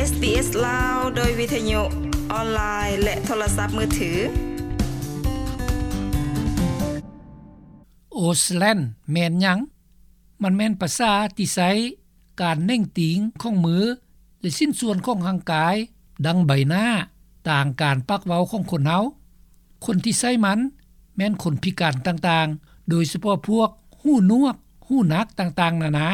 ເອສບີເອສ ລາວ ໂດຍວິທະຍຸອອນລາຍ ແລະ ໂທລະສັບມືຖື. ໂອສແລນແມ່ນຫຍັງ? ມັນແມ່ນພາສາທີ່ໃຊ້ການເໜັງຕີງຂອງມື ແລະ ຊິ້ນສ່ວນຂອງຮ່າງກາຍ ດັ່ງໃບໜ້າ, ຕາງການປາກເວົ້າຂອງຄົນເຮົາ. ຄົນທີ່ໃຊ້ມັນແມ່ນຄົນພິການຕ່າງໆ, ໂດຍສະເພາະພວກຫູໜວກ, ຫູໜັກຕ່າງໆນານາ.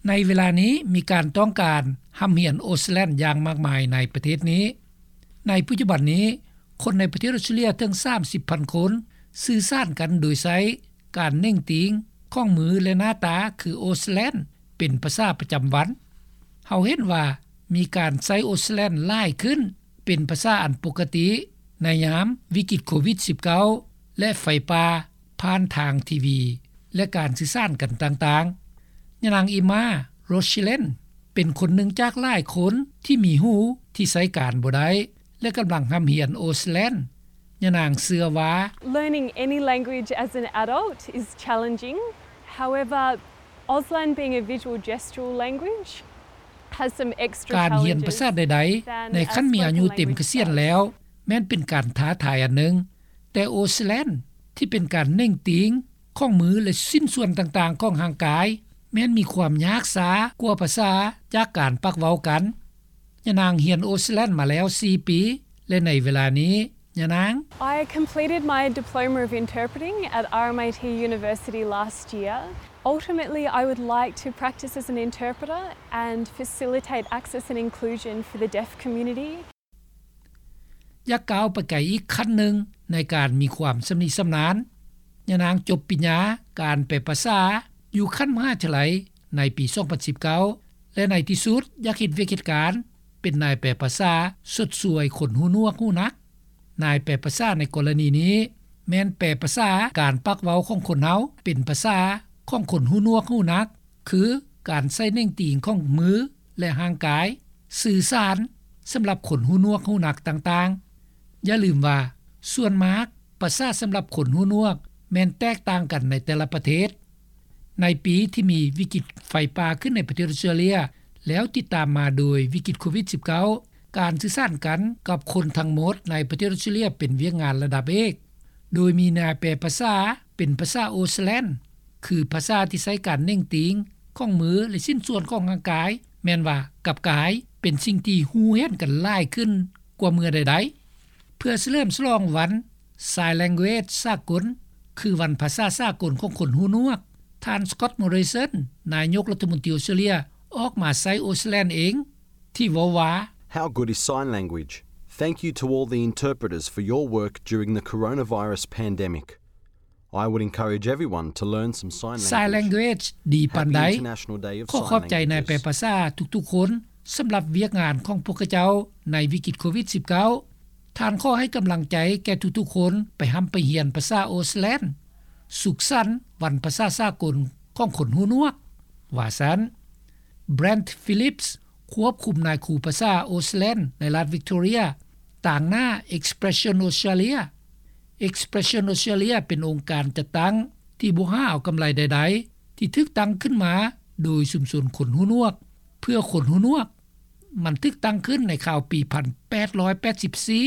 ໃນເວລານີ້ມີການຕ້ອງການຮ່ຳຮຽນໂອສແລນຢ່າງມາກມາຍໃນປະເທດນີ້. ໃນປັດຈຸບັນນີ້, ຄົນໃນປະເທດອອສເຕຣເລຍເຖິງສາມສິບພັນຄົນ ສື່ສານກັນໂດຍໃຊ້ການເໜັງຕີງຂອງມື ແລະ ໜ້າຕາຄືໂອສແລນ ເປັນພາສາປະຈຳວັນ. ເຮົາເຫັນວ່າມີການໃຊ້ໂອສແລນຫຼາຍຂຶ້ນ ເປັນພາສາອັນປົກກະຕິໃນຍາມວິກິດໂຄວິດສິບເກົ້າ ແລະ ໄຟປ່າ ຜ່ານທາງທີວີ ແລະ ການສື່ສານກັນຕ່າງໆ. ຍານາງ ອີມາ ໂຣຊິເລນ ເປັນຄົນໜຶ່ງຈາກຫຼາຍຄົນທີ່ມີຫູທີ່ໃຊ້ການບໍ່ໄດ້ ແລະ ກຳລັງຮ່ຳຮຽນໂອສແລນ. ຍານາງເຊື່ອວ່າ Learning any language as an adult is challenging. However, Auslan being a visual gestural language has some extra challenges than a spoken language does. ການຮຽນພາສາໃດໆ ໃນຂັ້ນມີອາຍຸເຕັມກະສຽນແລ້ວ ແມ່ນເປັນການທ້າທາຍອັນໜຶ່ງ, ແຕ່ໂອສແລນ ທີ່ເປັນການເໜັງຕີງຂອງມື ແລະ ຊິ້ນສ່ວນຕ່າງໆຂອງຮ່າງກາຍ ແມ່ນມີຄວາມຍາກຊ້າກວ່າພາສາຈາກການປາກເວົ້າກັນ. ຍານາງຮຽນໂອສແລນມາແລ້ວສີ່ປີ ແລະ ໃນເວລານີ້ ຍານາງ I completed my Diploma of Interpreting at R M I T University last year. Ultimately, I would like to practice as an interpreter and facilitate access and inclusion for the deaf community. ຢາກກ້າວໄປໄກອີກຂັ້ນໜຶ່ງໃນການມີຄວາມຊຳນິຊຳນານ. ຍານາງຈົບປະລິນຍາການແປພາສາຢູ່ຂັ້ນມະຫາວິທະຍາໄລໃນປີສອງພັນສິບເກົ້າ ແລະ ໃນທີ່ສຸດຢາກເຮັດວຽກເຮັດການເປັນນາຍແປພາສາຊົດຊ່ວຍຄົນຫູໜວກຫູໜັກ. ນາຍແປພາສາໃນກໍລະນີນີ້ແມ່ນແປພາສາການປາກເວົ້າຂອງຄົນເຮົາເປັນພາສາຂອງຄົນຫູໜວກຫູໜັກ ຄືການໃຊ້ເໜັງຕີງຂອງມື ແລະ ຮ່າງກາຍສື່ສານສຳລັບຄົນຫູໜວກຫູໜັກຕ່າງໆ. ຢ່າລືມວ່າ ສ່ວນມາກພາສາສຳລັບຄົນຫູໜວກແມ່ນແຕກຕ່າງກັນໃນແຕ່ລະປະເທດ. ໃນປີທີ່ມີວິກິດໄຟປ່າຂຶ້ນໃນປະເທດອອສເຕຣເລຍ ແລ້ວຕິດຕາມມາໂດຍວິກິດໂຄວິດສິບເກົ້າ ການສື່ສານກັນກັບຄົນທັງໝົດໃນປະເທດອອສເຕຣເລຍເປັນວຽກງານລະດັບເອກ, ໂດຍມີນາຍແປພາສາເປັນພາສາໂອສແລນ ຄືພາສາທີ່ໃຊ້ການເໜັງຕີງຂອງມື ແລະ ຊິ້ນສ່ວນຂອງຮ່າງກາຍ, ແມ່ນວ່າກັບກາຍເປັນສິ່ງທີ່ຮູ້ເຫັນກັນຫຼາຍຂຶ້ນກວ່າເມື່ອໃດໆ. ເພື່ອສະເຫຼີມສະຫຼອງວັນ Sign Language ສາກົນ ຄືວັນພາສາສາກົນຂອງຄົນຫູໜວກ, ທ່ານ Scott Morrison ນາຍົກລັດຖະມົນຕີອອສເຕຣເລຍ ອອກມາໃຊ້ໂອສແລນເອງ ທີ່ເວົ້າວ່າ How good is sign language? Thank you to all the interpreters for your work during the coronavirus pandemic. I would encourage everyone to learn some sign language. Sign language ດີປານໃດ? Happy International Day of Sign Languages. ຂໍຂອບໃຈນາຍແປພາສາທຸກໆຄົນສຳລັບວຽກງານຂອງພວກເຂົາເຈົ້າໃນວິກິດໂຄວິດສິບເກົ້າ. ທ່ານຂໍໃຫ້ກຳລັງໃຈແກ່ທຸກໆຄົນໄປຮ່ຳໄປຮຽນພາສາໂອສແລນ. ສຸກສັນວັນພາສາສາກົນຂອງຄົນຫູໜວກ, ວ່າຊັ້ນ. Brent Phillips ຄວບຄຸມນາຍຄູພາສາໂອສແລນໃນລັດວິກຕໍເຣຍ ຕາງໜ້າ Expression Australia. Expression Australia ເປັນອົງການຈັດຕັ້ງທີ່ບໍ່ຫາເອົາກຳໄລໃດໆ ທີ່ຖືກຕັ້ງຂຶ້ນມາໂດຍຊຸມຊົນຄົນຫູໜວກ ເພື່ອຄົນຫູໜວກ. ມັນຖືກຕັ້ງຂຶ້ນໃນຄາວປີພັນແປດຮ້ອຍແປດສິບສີ່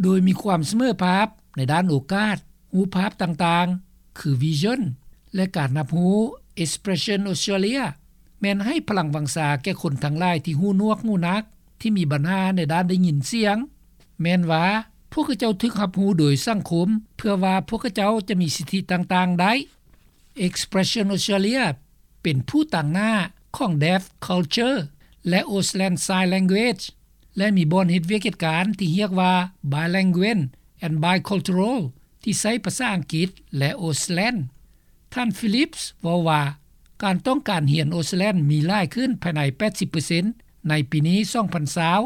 ໂດຍມີຄວາມສະເໝີພາບໃນດ້ານໂອກາດ, ຮູບພາບຕ່າງໆ ຄື Vision ແລະ ການຮັບຮູ້. Expression Australia ແມ່ນໃຫ້ພະລັງວັງຊາແກ່ຄົນທັງຫຼາຍທີ່ຫູໜວກຫູໜັກ, ທີ່ມີບັນຫາໃນດ້ານໄດ້ຍິນສຽງ, ແມ່ນວ່າພວກເຂົາເຈົ້າຖືກຮັບຮູ້ໂດຍສັງຄົມ ເພື່ອວ່າພວກເຂົາເຈົ້າຈະມີສິດທິຕ່າງໆໄດ້. Expression Australia ເປັນຜູ້ຕາງໜ້າຂອງ Deaf Culture ແລະ Auslan Sign Language ແລະ ມີບ່ອນເຮັດວຽກເຮັດການທີ່ຮຽກວ່າ Bilingual and Bicultural ທີ່ໃຊ້ພາສາອັງກິດ ແລະ ໂອສແລນ. ທ່ານ Phillips ເວົ້າວ່າ ການຕ້ອງການຮຽນໂອສແລນມີຫຼາຍຂຶ້ນພາຍໃນແປດສິບເປີເຊັນໃນປີນີ້ ສອງພັນຊາວ.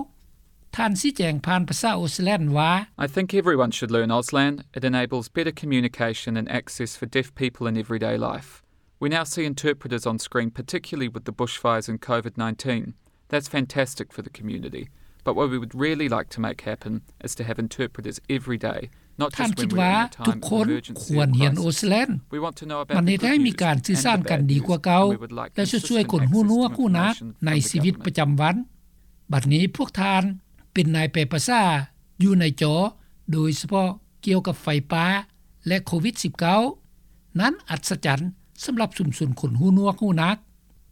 ທ່ານຊີ້ແຈງຜ່ານພາສາໂອສແລນວ່າ I think everyone should learn Auslan. It enables better communication and access for deaf people in everyday life. We now see interpreters on screen, particularly with the bushfires and COVID nineteen. That's fantastic for the community. But what we would really like to make happen is to have interpreters every day, not just when we're in a time of emergency or crisis. ທ່ານຄິດວ່າທຸກຄົນຄວນຮຽນໂອສແລນ. We want to know about the good news and the bad news, and we would like consistent access to information from the government. ມັນເຮັດໃຫ້ມີການສື່ສານກັນດີກວ່າເກົ່າ ແລະ ຊ່ວຍໆຄົນຫູໜວກຫູໜັກໃນຊີວິດປະຈຳວັນ. ບັດນີ້ພວກທ່ານເປັນນາຍແປພາສາຢູ່ໃນຈໍ ໂດຍສະເພາະກ່ຽວກັບໄຟປ່າ ແລະ ໂຄວິດ-19 ນັ້ນອັດສະຈັນສຳລັບຊຸມຊົນຄົນຫູໜວກຫູໜັກ.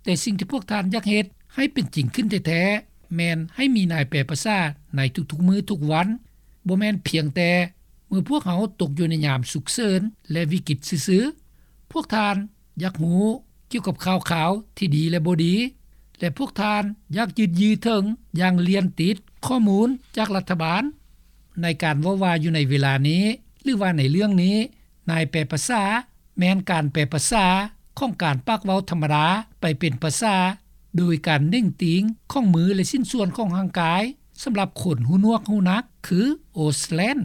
ແຕ່ສິ່ງທີ່ພວກທ່ານຢາກເຮັດໃຫ້ເປັນຈິງຂຶ້ນແທ້ໆ ແມ່ນໃຫ້ມີນາຍແປພາສາໃນທຸກໆມື້ທຸກວັນ, ບໍ່ແມ່ນພຽງແຕ່ເມື່ອພວກເຮົາຕົກຢູ່ໃນຍາມສຸກເສີນ ແລະ ວິກິດຊື່ໆ. ພວກທ່ານຢາກຮູ້ກ່ຽວກັບຂ່າວຄາວທີ່ດີ ແລະ ບໍ່ດີ ແລະ ພວກທ່ານຢາກຍືດເຍື້ອເຖິງຢ່າງລຽນຕິດຂໍ້ມູນຈາກລັດຖະບານ. ໃນການເວົ້າວ່າຢູ່ໃນເວລານີ້ ຫຼືວ່າໃນເລື່ອງນີ້ ນາຍແປພາສາແມ່ນການແປພາສາຂອງການປາກເວົ້າທຳມະດາໄປເປັນພາສາ ໂດຍການເໜັງຕີງຂອງມື ແລະ ຊິ້ນສ່ວນຂອງຮ່າງກາຍ ສຳລັບຄົນຫູໜວກຫູໜັກ ຄື Auslan.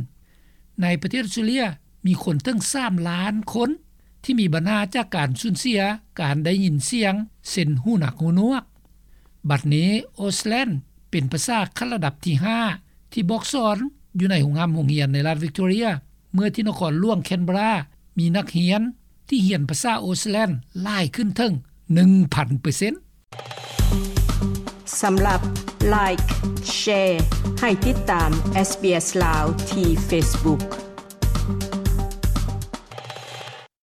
ໃນປະເທດອອສເຕຣເລັຽ ມີຄົນເຖິງສາມລ້ານຄົນທີ່ມີບັນຫາຈາກການສູນເສຍການໄດ້ຍິນສຽງ ເຊັ່ນ ຫູໜັກຫູໜວກ. ບັດນີ້ Auslan ເປັນພາສາຂັ້ນລະດັບທີຫ້າ ທີ່ບອກສອນຢູ່ໃນໂຮງຮ່ຳໂຮງຮຽນໃນລັດວິກຕໍເຣຍ ເມື່ອທີ່ນະຄອນຫຼວງ Canberra ມີນັກຮຽນທີ່ຮຽນພາສາ Auslan ຫຼາຍຂຶ້ນເຖິງໜຶ່ງພັນເປີເຊັນ. ສຳລັບ Like, Share ໃຫ້ຕິດຕາມ SBS ລາວ ທີ່ Facebook.